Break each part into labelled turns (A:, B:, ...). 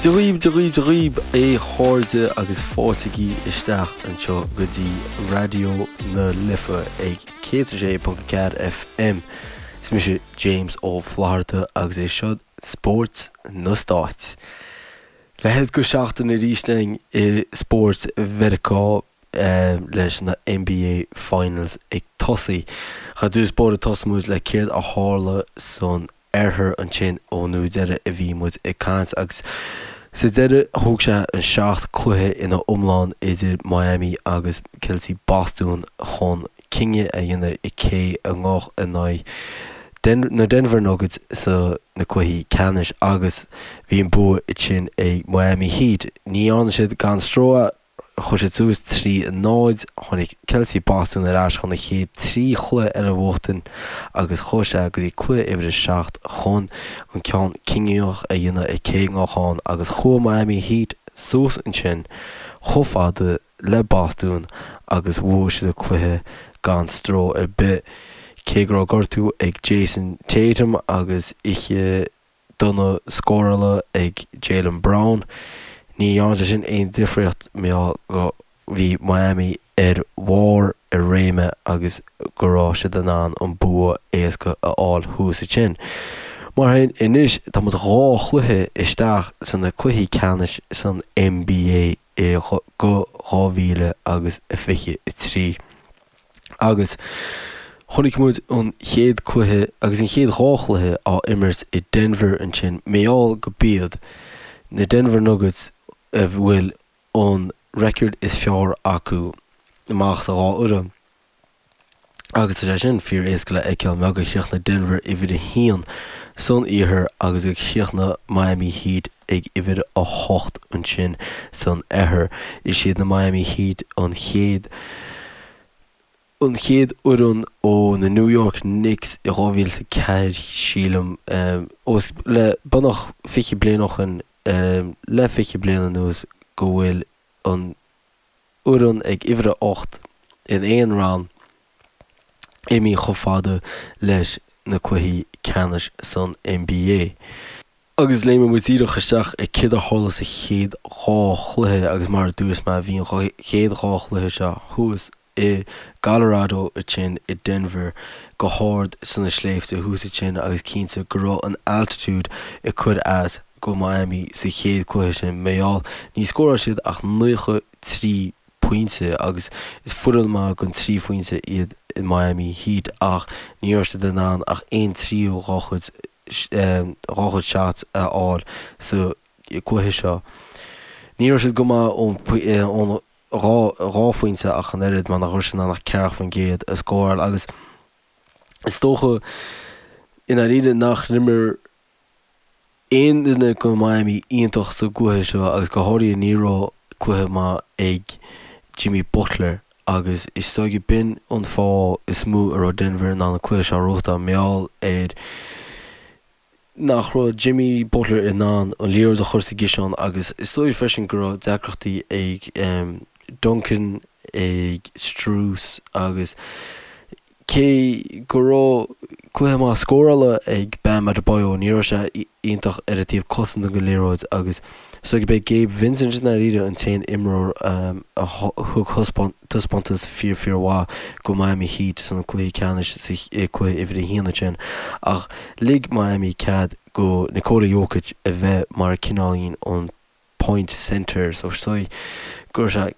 A: Dia dhaoib, Dia dhaoib, Dia dhaoib, a chairde agus fáiltigí isteach anseo go dtí Raidió na Life ag 106.4 FM. Is mise James Ó Flatharta agus é seo Spórt na Stáit. Leathéid go seachtain arís againn i spórt Mheiriceá leis na NBA Finals ag tosaí. Ar dtús báire tosóidh muid le céard a tharla san oirthear ansin ón uair deiridh a bhí muid ag caint agus sa deireadh thóg sé an 7 cluiche ina iomlán idir Miami agus Celtics Bostún chun cinneadh a dhéanamh i cé a ngabhadh in aghaidh na Denver Nuggets sa na cluichí ceannais agus bhí an bua ansin ag Miami Heat. Ní dhearna siad gan stró Chuaigh siad suas 3, 0. Tháinig Celtics Bostún ar ais chun an chéad 3 chluiche eile a bhuachtain agus chuaigh sé go dtí cluiche uimhir a 7 chun an ceann cinniúnach a dhéanamh ar cé a ngabhadh ann agus chuaigh Miami Heat suas ansin chomh fada le Bostún agus bhuaigh siad an cluiche gan stró ar bith. Cé go raibh gortú ag Jayson Tatum agus oíche dona scórála ag Jaylen Brown. Ní dhearna sé sin aon difríocht mar gheall go bhí Miami ar bharr a réime agus go raibh siad in ann an bua éasca a fháil thuas ansin. Mar sin, anois tá muid dhá chluiche isteach sna cluichí ceannais san NBA i go 2023. Agus chonaic muid an chéad cluiche agus an chéad dhá chluiche á imirt i Denver ansin, mar gheall go b'iad na Denver Nuggets a bhfuil an record is fearr acu amach sa dhá fhoireann. Agus tá sé sin fíor éasca le fheiceáil mar gur chríochnaigh Denver uimhir a haon san iarthar agus gur chríochnaigh Miami Heat ag uimhir a hocht ansin san oirthear. Is iad na Miami Heat an chéad an chéad fhoireann ó na New York Knicks i 2004 sílim, os le beagnach 20 bliain ó shin, le 20 bliain anuas go bhfuil an fhoireann ag uimhir a 8 in aon roinn imithe chomh fada leis na cluichí ceannais san NBA. Agus léimfidh muid díreach isteach ar céard a tharla sa chéad dhá chluiche agus mar a dúirt mé bhí an chéad dhá chluiche seo thuas i gColorado ansin i Denver go hard sna sléibhte thuas ansin agus cinnte go raibh an altitude ag cur as go Miami sa chéad cluiche sin mar gheall ní scóráil siad ach 93 pointe agus is foireann maith gon 3 phointe iad Miami Heat ach ní raibh siad in ann ach aon tríú dhá chuid dhá chuid shots a fháil sa cluiche seo. Ní raibh siad go maith ón 2 phointe ach an oiread mar nach raibh siad in ann ach 40% a scóráil agus is dócha i ndáiríre nach n-imir aon duine go Miami iontach sa gcluiche seo agus go háirithe ní raibh cluiche maith ag Jimmy Butler agus is dóigh b'in an fáth is mó a raibh Denver in ann an cluiche seo a ghnóthachtáil mar gheall ar nach raibh Jimmy Butler in ann an liathróid a chur sa gciseán agus is dóigh freisin go raibh deacrachtaí ag Duncan, ag Strus agus cé go raibh cluiche maith scórála ag Bam Adebayo ní raibh sé iontach ar an taobh cosanta den liathróid agus is dóigh gurb é Gabe Vincent i ndáiríre an t-aon imreoir a thug taispeántas fíor fíor mhaith go Miami Heat san cluiche ceannais sa cluiche uimhir a haon ansin ach lig Miami cead go Nikola Jokic a bheith mar cineáilín an point centre so is dóigh go raibh sé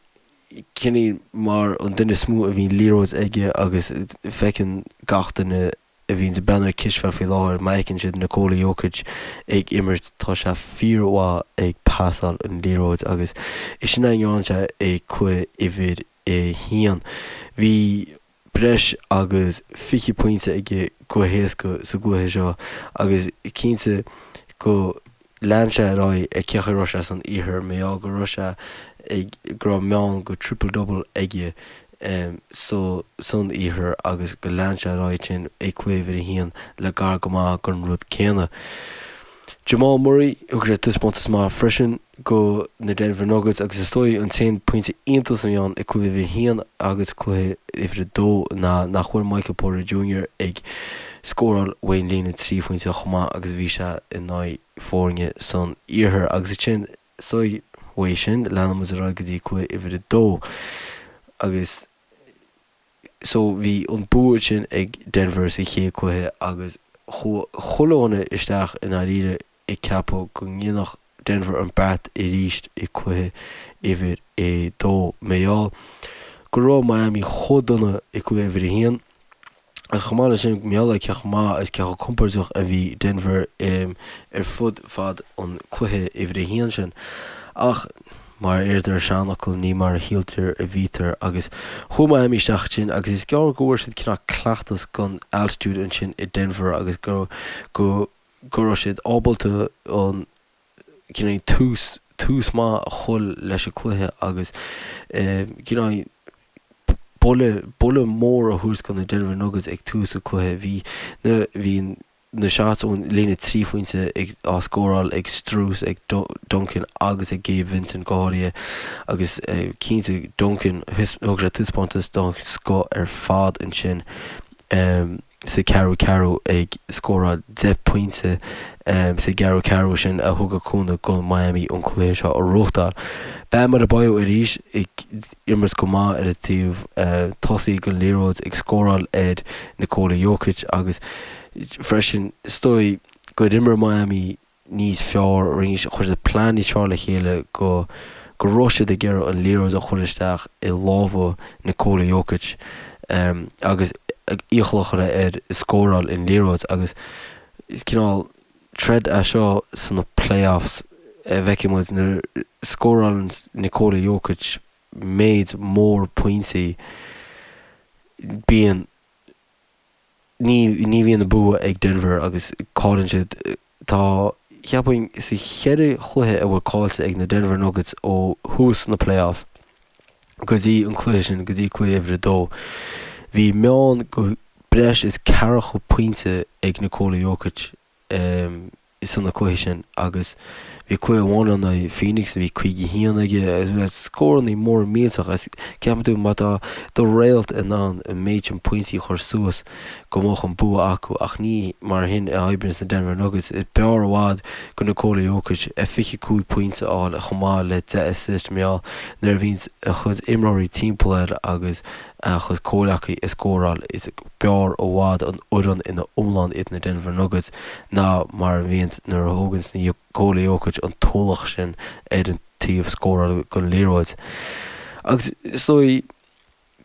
A: cineál mar an duine is mó a bhíonn liathróid aige agus feiceann gach duine a bhíonn ag breathnú ar cispheil faoi láthair, má fheiceann siad Nikola Jokic ag imirt, tá sé fíormhaith ag pasáil an liathróid agus is sin a ndearna sé i cluiche uimhir a haon. Bhí breis agus 20 pointe aige go héasca sa gcluiche seo agus cinnte go lean sé ar aghaidh ar cé chaoi a raibh sé san iarthar mar gheall go raibh sé ag go raibh meán go triple double aige so san iarthar agus go lean sé ar aghaidh sin ag cluiche uimhir a haon le gar go maith gon rud céanna. Jamal Murray, thug sé taispeántas maith freisin go na Denver Nuggets agus is dóigh an t-aon pointe iontais a bhí ann i cluiche uimhir a haon agus cluiche uimhir a dó ná nach bhfuil Michael Porter Jr ag scóráil ón líne 3 phointe chomh maith agus a bhí sé in aghaidh foirne san iarthar agus ansin is dóigh uaidh sin leanann muid ar aghaidh go dtí cluiche uimhir a dó agus So bhí an bua sin ag Denver sa chéad cluiche agus chuaigh chuile dhuine isteach i ndáiríre ag ceapadh go ndéanfadh Denver an beart arís i cluiche uimhir a dó. Mar gheall go raibh Miami chomh dona i cluiche uimhir a haon agus chomh maith leis sin mar gheall ar cé chomh maith agus cé chomh compordach a bhí Denver ar fud fad an cluiche uimhir a haon sin. Ach. Mar a deirtear an seanfhocal, ní mar a shíltear a bhítear agus chuaigh Miami isteach ansin agus is gearr go bhfuair siad cineál cleachtas don altitude ansin i Denver agus go go go raibh siad ábalta an cineál tús tús maith a chur leis an cluiche agus cineál buille buille mór a thabhairt do na Denver Nuggets ag tús an cluiche. Bhí na bhí an na shots ón líne 3 phointe ag á scóráil ag Strus, ag Duncan agus ag Gabe Vincent go háirithe agus cinnte Duncan thug sé taispeántas den scoth ar fad ansin sa ceathrú ceathrú ag scóráil 10 pointe sa gceathrú ceathrú sin a thug a cúnamh go Miami an cluiche seo a bhuachtáil. Bam Adebayo arís ag imirt go maith ar an taobh tosaigh den liathróid ag scóráil ar Nikola Jokic agus freisin is dóigh gur imir Miami níos fearr, chuir siad plean níos fearr le chéile go go raibh siad ag iarraidh an liathróid a chur isteach i lámha Nikola Jokic agus iachall a chur air scóráil an liathróid agus is cineál troid é seo sna playoffs a bhfeicfidh muid nuair a scórálann Nikola Jokic méid mór pointí bíonn ní ní bhíonn an bua ag Denver agus cailleann siad. Tá, cheapfainn, sa cheithre chluiche a bhfuil caillte ag na Denver Nuggets ó thús na playoffs go dtí an cluiche sin, go dtí cluiche uimhir a dó, bhí meán go breis is ceathracha pointe ag Nikola Jokic. sna cluichí sin agus bhí cluiche amháin in aghaidh Phoenix a bhí 51 aige agus scórannaí mór millteach agus ceapann tú má tá do réalt in ann an méid sin pointí a chur suas go mbeadh an bua acu ach ní mar shin a oibríonn na Denver Nuggets. Is b'fhearr i bhfad go Nikola Jokic 25 pointe a fháil chomh maith le 10 assist mar gheall nuair a bhíonn a chuid imreoirí timpeall air agus a chuid comhleacaí ag scóráil. Is b'fhearr i bhfad an fhoireann ina iomlán iad na Denver Nuggets ná mar a bhíonns nuair a thóganns Nikola Jokic an t-ualach sin ar an taobh scóráil den liathróid. Agus is dóigh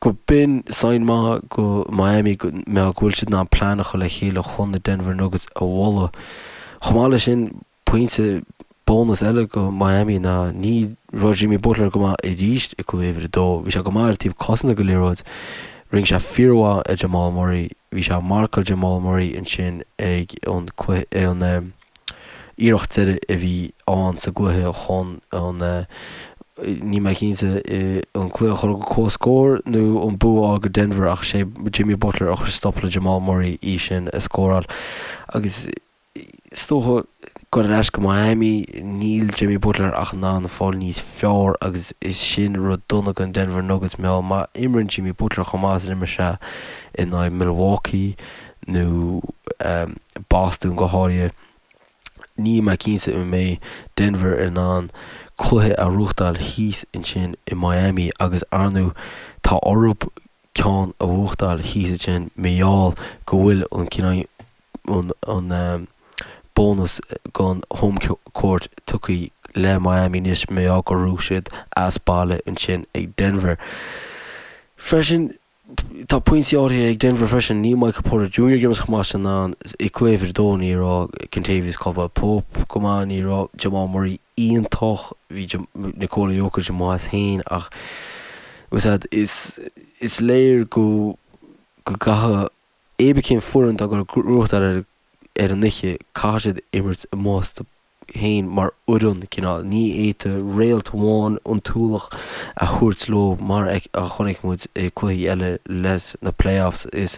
A: go b'in sign maith go Miami go mbeadh go bhfuil siad in ann plean a chur le chéile chun na Denver Nuggets a bhualadh. Chomh maith leis sin, Pointe bónas eile go Miami ná ní raibh Jimmy Butler go maith arís i gcluiche uimhir a dó. Bhí sé go maith ar an taobh cosanta den liathróid. Rinne sé fíormhaith ar Jamal Murray. Bhí sé ag marcáil Jamal Murray ansin ag an cluiche, an iarracht deiridh a bhí ann sa gcluiche chun an, níl mé cinnte, an cluiche a chur go comhscór nó an bua a fháil go Denver ach sé Jimmy Butler a chuir stop le Jamal Murray í sin a scóráil. Agus Is dócha gur ar ais go Miami, níl Jimmy Butler ach in ann fáil níos fearr agus is sin rud dona don Denver Nuggets mar gheall má imríonn Jimmy Butler chomh maith is a d'imir sé in aghaidh Milwaukee nó Boston go háirithe, níl mé cinnte an mbeidh Denver in ann cluiche a ghnóthachtáil thíos ansin i Miami agus ar ndóigh tá orthu ceann a bhuachtáil thíos ansin mar gheall go bhfuil an cineál an bónas den home court tugtha le Miami anois mar gheall gur bhuaigh siad as baile ansin ag Denver. Freisin, tá pointí áirithe ag Denver freisin, níl Michael Porter Jr. ag imirt chomh maith sin ann i gcluiche uimhir a dó, ní raibh Kentavious Caldwell-Pope go maith, ní raibh Jamal Murray iontach, bhí Nikola Jokic amuigh as féin ach is is léir go go gcaithfidh Pé ar bith cén foireann atá ag dul a ghnóthachtáil ar ar an oíche, caithfidh siad imirt amuigh astu féin mar fhoireann, cineál. Ní fhéadfaidh réalt amháin an t-ualach a thabhairt leo mar a chonaic muid i cluichí eile leis na playoffs. Is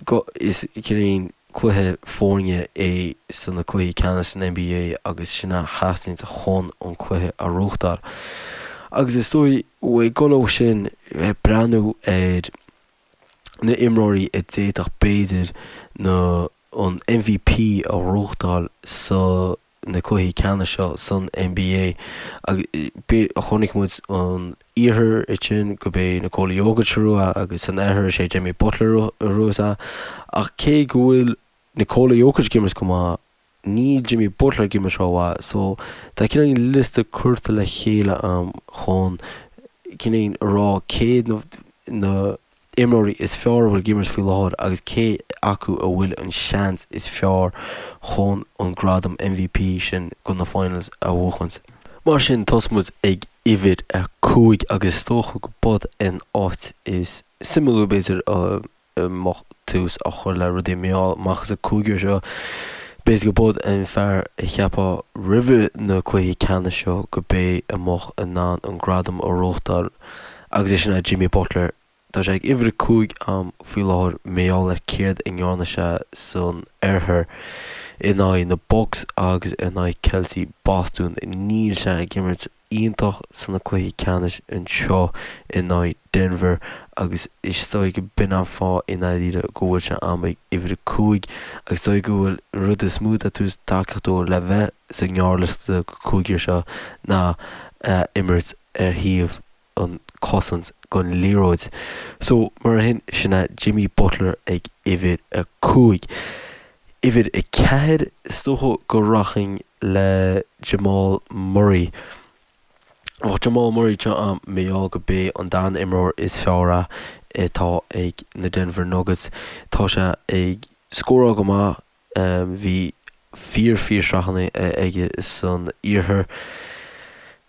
A: go, is cineál. Cluiche foirne é sna cluichí ceannais san NBA agus sin a theastaíonn chun an cluiche a ghnóthachtáil. Agus is dóigh, ag dul ó sin, breathnú ar na imreoirí a d'fhéadfadh b'fhéidir na an MVP a ghnóthachtáil sa na cluichí ceannais seo san NBA. Chonaic muid an iarthar ansin go b'é Nikola Jokic a ghnóthaigh agus san oirthear is é Jimmy Butler a ghnóthaigh é. Ach cé go bhfuil Nikola Jokic ag imirt go maith, níl Jimmy Butler ag imirt rómhaith. So tá cineál liosta curtha le chéile a'm chun cineál a rá cé na imreoirí is fearr a bhfuil ag imirt faoi láthair agus cé acu a bhfuil an seans is fearr chun an gradam MVP sin go na Finals a bhuachaint. Mar sin, tosóidh muid ag uimhir 5 agus is dócha go b'in an áit is suimiúla b'fhéidir a mbeadh tús á chur le rudaí mar gheall amach as an cúigear seo. B'fhéidir go b'in an fear a cheapfá roimhe na cluichí ceannais seo go b'é a mbeadh in ann an gradam a ghnóthachtáil agus é sin é Jimmy Butler. Tá sé ag uimhir 5 a'm faoi láthair mar gheall ar céard a ndearna sé san oirthear in aghaidh na Bucks agus in aghaidh Celtics Bostún. Níl sé ag imirt iontach sna cluichí ceannais anseo in aghaidh Denver agus is dóigh go b'in an fáth i ndáiríre go bhfuil sé a'm ag uimhir 5 agus is dóigh go bhfuil an rud is mó atá ag tabhairt tacaíocht dó le bheith sa ngearrliosta go cúigear seo ná a imirt ar thaobh an cosaint gon liathróid. So, mar sin, sin é Jimmy Butler ag uimhir 5. Uimhir 4, is dócha go rachainn le Jamal Murray. Bheadh Jamal Murray anseo a'm mar gheall go b'é an darna imreoir is fearr é atá ag na Denver Nuggets. Tá sé ag scóráil go maith. Bhí fíor fíor sraitheanna aige san iarthar.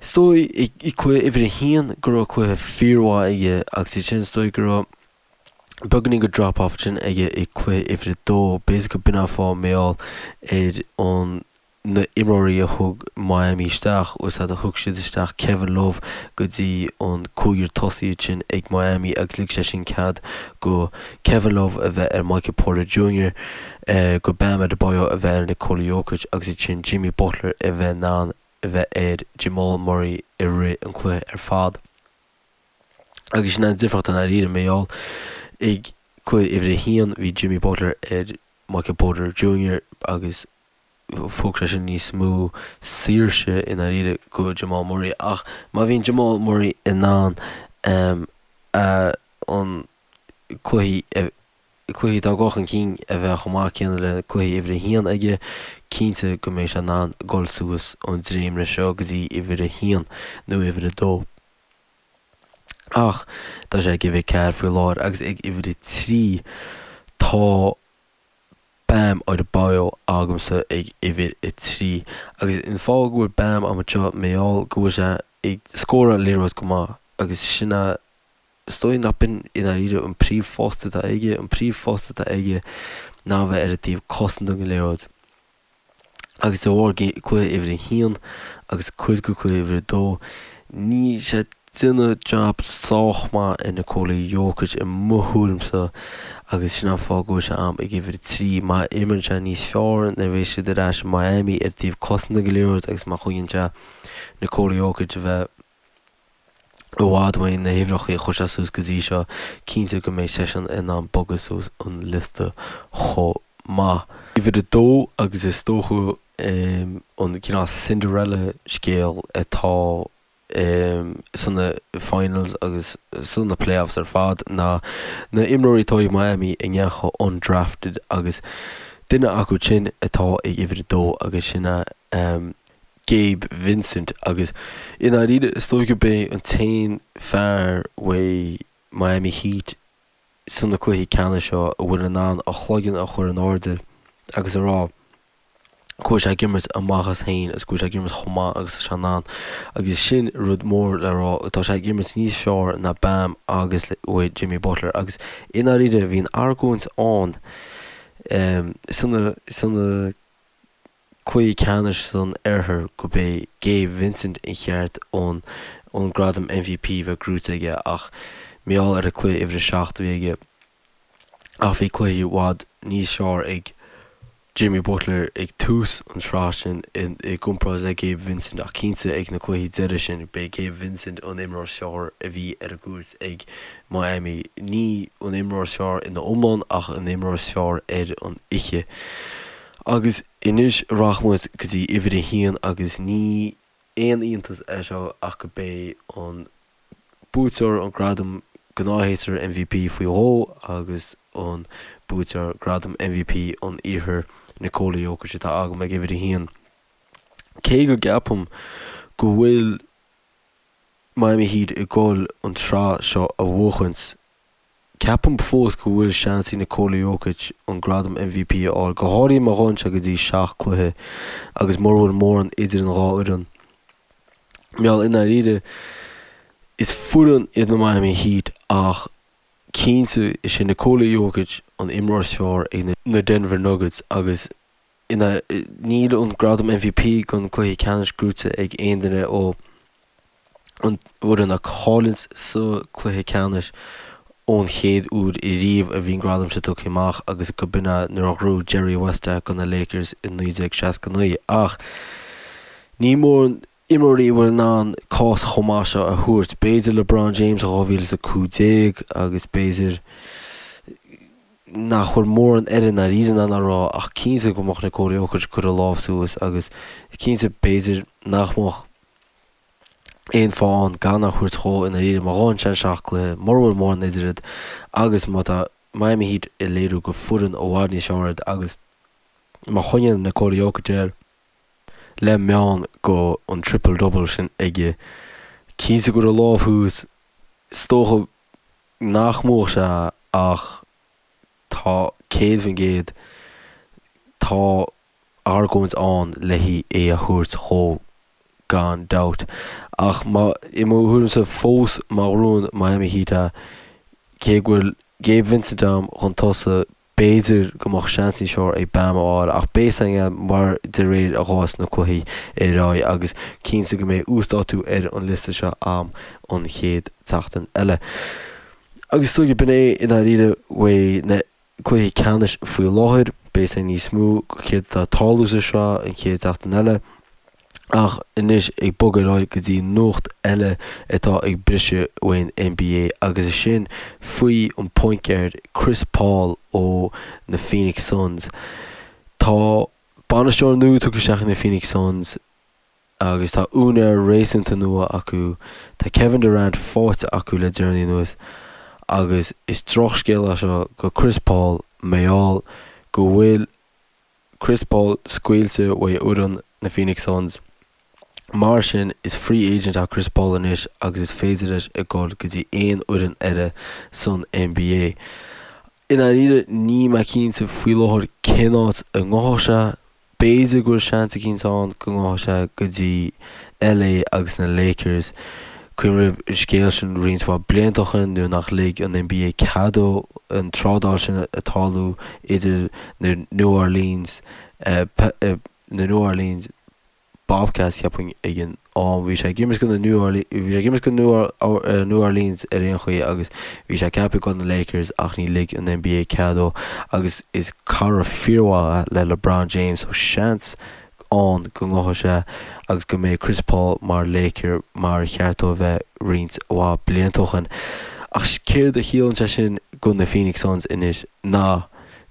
A: Is dóigh i cluiche uimhir a haon go raibh cluiche fíormhaith aige agus ansin is dóigh go raibh beagáinín go drop off ansin aige i cluiche uimhir a dó. B'fhéidir go b'in an fáth mar gheall ar an na imreoirí a thug Miami isteach, is ea thug siad isteach Kevin Love go dtí an cúigear tosaigh ansin ag Miami agus lig sé sin cead go Kevin Love a bheith ar Michael Porter Jr, go Bam Adebayo a bheith ar Nikola Jokic agus ansin Jimmy Butler a bheith in ann a bheith ar Jamal Murray i rith an cluiche ar fad. Agus sin an difríocht i ndáiríre mar gheall ag cluiche uimhir a haon bhí Jimmy Butler ar Michael Porter Jr agus thug sé sin níos mó saoirse i ndáiríre go Jamal Murray ach má bhíonn Jamal Murray in ann an cluichí cluichí atá ag dul chun cinn a bheith chomh maith céanna le cluiche uimhir a haon aige, cinnte go mbeidh sé in ann dul suas an dréimire seo go dtí uimhir a haon nó uimhir a dó. Ach tá sé ag uimhir 4 faoi láthair agus ag uimhir a 3 tá Bam Adebayo agamsa ag uimhir 3. Agus an fáth go bhfuil Bam agam anseo mar gheall go bhfuil sé ag scóráil liathróid go maith agus sin é is dóigh nach b'in i ndáiríre an príomhphost atá aige, an príomhphost atá aige ná a bheith ar an taobh cosanta den liathróid. Agus de bharr cluiche uimhir a haon agus cuid de cluiche uimhir a dó, níl sé ag déanamh jab sách maith ar Nikola Jokic i mo thuairimse agus sin an fáth go bhfuil sé a'm ag uimhir a 3. Má imríonn sé níos fearr nuair a bheidh siad ar ais i Miami ar taobh cosanta den liathróid agus má choinníonn sé Nikola Jokic a bheith i bhfad uaidh na huimhreacha a chuir sé suas go dtí seo, cinnte go mbeidh seisean in ann bogadh suas an liosta chomh maith. Uimhir a dó agus is dócha an cineál Cinderella scéal atá sna finals agus sna playoffs ar fad ná na imreoirí atá ag Miami a ndeachaigh undrafted agus duine acu sin atá ag uimhir a dó agus sin é Gabe Vincent agus i ndáiríre is dóigh gurb é an t-aon fear uaidh Miami Heat sna cluichí ceannais seo a bhfuil in ann a chloigeann a chur in airde agus a rá go bhfuil sé ag imirt a mhaitheas féin agus go bhfuil sé ag imirt chomh maith agus tá sé in ann agus sin rud mór le rá tá sé ag imirt níos fearr ná Bam agus uaidh Jimmy Butler agus i ndáiríre bhí an argóint ann sna sna cluichí ceannais san oirthear go b'é Gabe Vincent an cheart an an gradam MVP bheith gnóite aige ach mar gheall ar an cluiche uimhir a 7 a bhí aige ach bhí cluichí i bhfad níos fearr ag. Jimmy Butler ag tús an tsraith sin i gcomparáid le Gabe Vincent ach cinnte ag na cluichí deiridh sin b'é Gabe Vincent an imreoir is fearr a bhí ar an gcúirt ag Miami. Ní an imreoir is fearr ina iomlán ach an imreoir is fearr ar an oíche. Agus anois rachaidh muid go dtí uimhir a haon agus ní aon iontas é seo ach go b'é an buaiteoir an gradam gnáthshéasúir MVP faoi dhó agus an buaiteoir gradam MVP an Iarthair Nikola Jokic atá agam ag uimhir a haon. Cé go gceapaim go bhfuil Miami Heat ag dul an tsraith seo a bhuachaint, ceapaim fós go bhfuil seans ag Nikola Jokic an gradam MVP a fháil, go háirithe má ghabhann sé go dtí seacht cluiche agus mura bhfuil mórán idir an dhá fhoireann. Mar gheall i ndáiríre, is foireann iad na Miami Heat ach cinnte is é Nikola Jokic an imreoir is fearr ag na Denver Nuggets agus ina níl an gradam MVP don cluiche ceannais gnóite ag aon duine ó an bhfoireann a chailleann sa cluiche ceannais ón chéad uair riamh a bhí an gradam seo tugtha amach agus go b'in é nuair a ghnóthaigh Jerry West é do na Lakers i 1969 ach ní mórán imreoirí a bhfuil in ann cás chomh maith seo a thabhairt. B'fhéidir LeBron James i 2015 agus b'fhéidir nach bhfuil mórán eile i ndáiríre in ann a rá ach cinnte go mbeadh Nikola Jokic ag cur a lámh suas agus cinnte b'fhéidir nach mbeadh aon fáth ann gan a thabhairt dhó i ndáiríre má ghabhann sé seacht cluiche, mura bhfuil mórán idir iad agus má tá Miami Heat ag léiriú gur foireann i bhfad níos fearr iad agus má choinníonn Nikola Jokic air le meán go an triple double sin aige, cinnte go bhfuil a lámh thuas, is dócha nach mbuafadh sé ach tá 100% tá argóint ann le é a thabhairt dhó gan dabht. Ach má, i mo thuairimse fós, má ghnóthaíonn Miami Heat é, cé go bhfuil Gabe Vincent agam chun tosaigh, b'fhéidir go mbeadh seans níos fearr ag Bam a fháil ach beidh a fhios againn mar de réir a ghabhfas na cluichí ar aghaidh agus cinnte go mbeidh uasdátú ar an liosta seo agam an chéad tseachtain eile. Agus is dóigh b'in é i ndáiríre faoi na cluichí ceannais faoi láthair. Beidh a fhios againn níos mó céard atá ag tarlú sa sraith an chéad seachtain eile. Ach anois ag bogadh ar aghaidh go dtí nuacht eile atá ag briseadh faoin NBA agus is sin faoi an point guard Chris Paul ó na Phoenix Suns. Tá bainisteoir nua tugtha isteach ag na Phoenix Suns agus tá úinéir réasúnta nua acu. Tá Kevin Durant faighte acu le deireanaí anuas agus is drochscéal é seo go Chris Paul mar gheall go bhfuil Chris Paul scaoilte uaidh fhoireann na Phoenix Suns. Mar sin, is free agent é Chris Paul anois agus is féidir leis a dhul go dtí aon fhoireann eile san NBA. I ndáiríre, níl mé cinnte faoi láthair cén áit a ngabhfadh sé. B'fhéidir go bhfuil seans eicínt ann go ngabhfadh sé go dtí LA agus na Lakers. Cuimhnigh an scéal sin roinnt mhaith blianta ó shin nuair nach lig an NBA cead dó an trádáil sin a tarlú idir na New Orleans na New Orleans Bobcats cheapfainn ag an am. Bhí sé ag imirt go na New Orleans bhí sé ag imirt go New Orleans ar aon chaoi agus bhí sé ceaptha go na Lakers ach ní lig an NBA cead dó agus is cara fíormhaith le LeBron James so seans ann go ngabhfaidh sé agus go mbeidh Chris Paul mar Laker mar a cheart dó a bheith roinnt mhaith blianta ó shin. Ach céard a chiallaíonn sé sin go na Phoenix Suns anois ná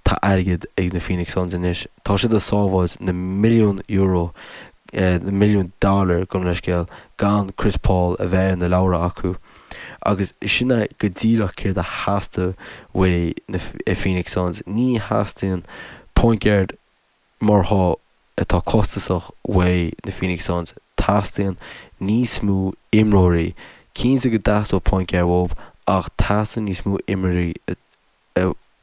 A: tá airgead ag na Phoenix Suns anois. Tá siad ag sábháilt na milliún euro, na milliún dollar gabh mo leithscéal, gan Chris Paul a bheith ar na leabhra acu. Agus sin é go díreach céard a theastaigh uaidh na Phoenix Suns. Ní theastaíonn point guard mar seo atá costasach uaidh na Phoenix Suns, teastaíonn níos mó imreoirí. Cinnte go dteastódh point guard uathu ach teastaíonn níos mó imreoirí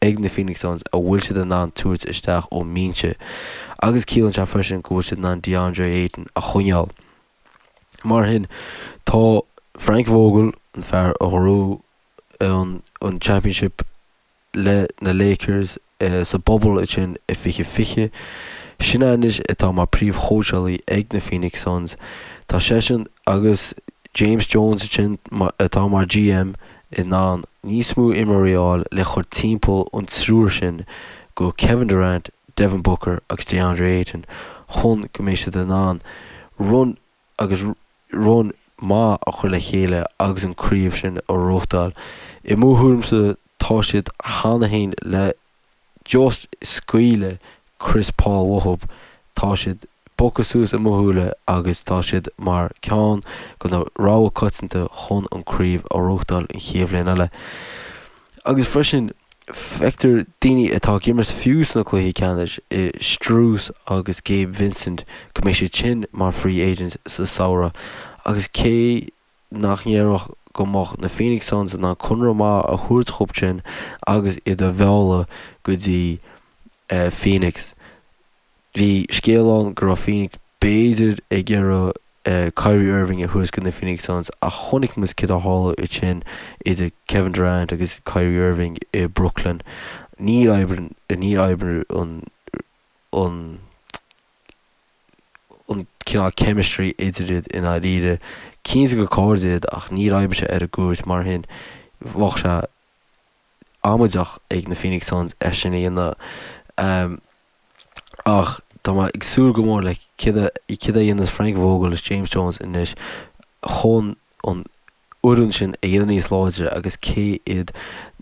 A: ag na Phoenix Suns a bhfuil siad in ann tabhairt isteach ón mbinse. Agus ciallaíonn sé freisin go bhfuil siad in ann DeAndre Ayton a choinneáil. Mar sin, tá Frank Vogel, an fear a ghnóthaigh an Championship, le na Lakers sa bubble ansin i 2020. Sin é anois atá mar príomhchóitseálaí ag na Phoenix Suns. Tá seisean agus James Jones ansin atá mar GM in ann níos mó imreoirí a fháil le chur timpeall an triúr sin go Kevin Durant, Devin Booker agus DeAndre Ayton chun go mbeidh siad in ann run agus run maith a chur le chéile agus an craobh sin a ghnóthachtáil. I mo thuairimse tá siad cheana féin le just scaoileadh Chris Paul uathub, tá siad bogtha suas i mo shúile agus tá siad mar ceann de na rogha coitianta chun an craobh a ghnóthachtáil an chéad bhliain eile. Agus freisin feictear daoine atá ag imirt fiú sna cluichí ceannais i Strus agus Gabe Vincent go mbeidh siad sin mar free agents sa samhradh agus cé nach ndéarfadh go mbeadh na Phoenix Suns in ann conradh maith a thabhairt dhóibh sin agus iad a mhealladh go dtí Phoenix. Bhí scéal ann go raibh Phoenix b'fhéidir ag iarraidh Kyrie Irving a thabhairt go na Phoenix Suns ach chonaic muid céard a tharla ansin idir Kevin Durant agus Kyrie Irving i Brooklyn. Níor oibrigh níor oibrigh an an an cineál chemistry idir iad i ndáiríre. Cinnte gur cairde iad ach níor oibrigh sé ar an gcúirt mar sin bheadh sé amaideach ag na Phoenix Suns é sin a dhéanamh. Ach tá mé ag súil go mór le céard a céard a dhéanfas Frank Vogel is James Jones anois chun an fhoireann sin a dhéanamh níos láidre agus cé iad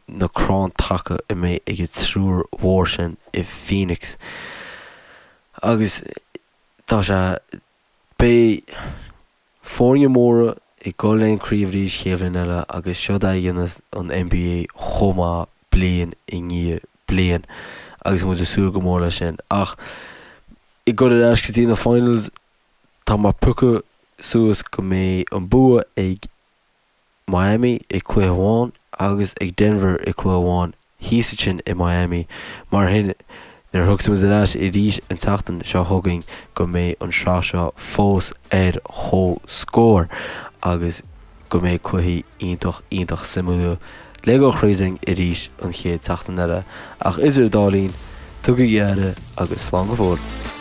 A: na crann taca a mbeidh ag an triúr mhór sin i Phoenix. Agus tá sé, beidh foirne móra ag dul le an craobh arís chéad bhliain eile agus seod é a dhéanas an NBA chomh maith bliain i ndiaidh bliain agus muid ag súil go mór leis sin. Ach ag dul ar ais go dtí na finals, Tá mé ag piocadh suas go mbeidh an bua ag Miami i cluiche amháin agus ag Denver i cluiche amháin thíos ansin i Miami. Mar sin, nuair a thiocfaidh muid ar ais arís an tseachtain seo chugainn go mbeidh an sraith seo fós ar chomhscór agus go mbeidh cluichí iontach iontach suimiúla le dhul thríd arís an chéad tseachtain eile. Ach idir an dá linn, tugaigí aire agus slán go fóill.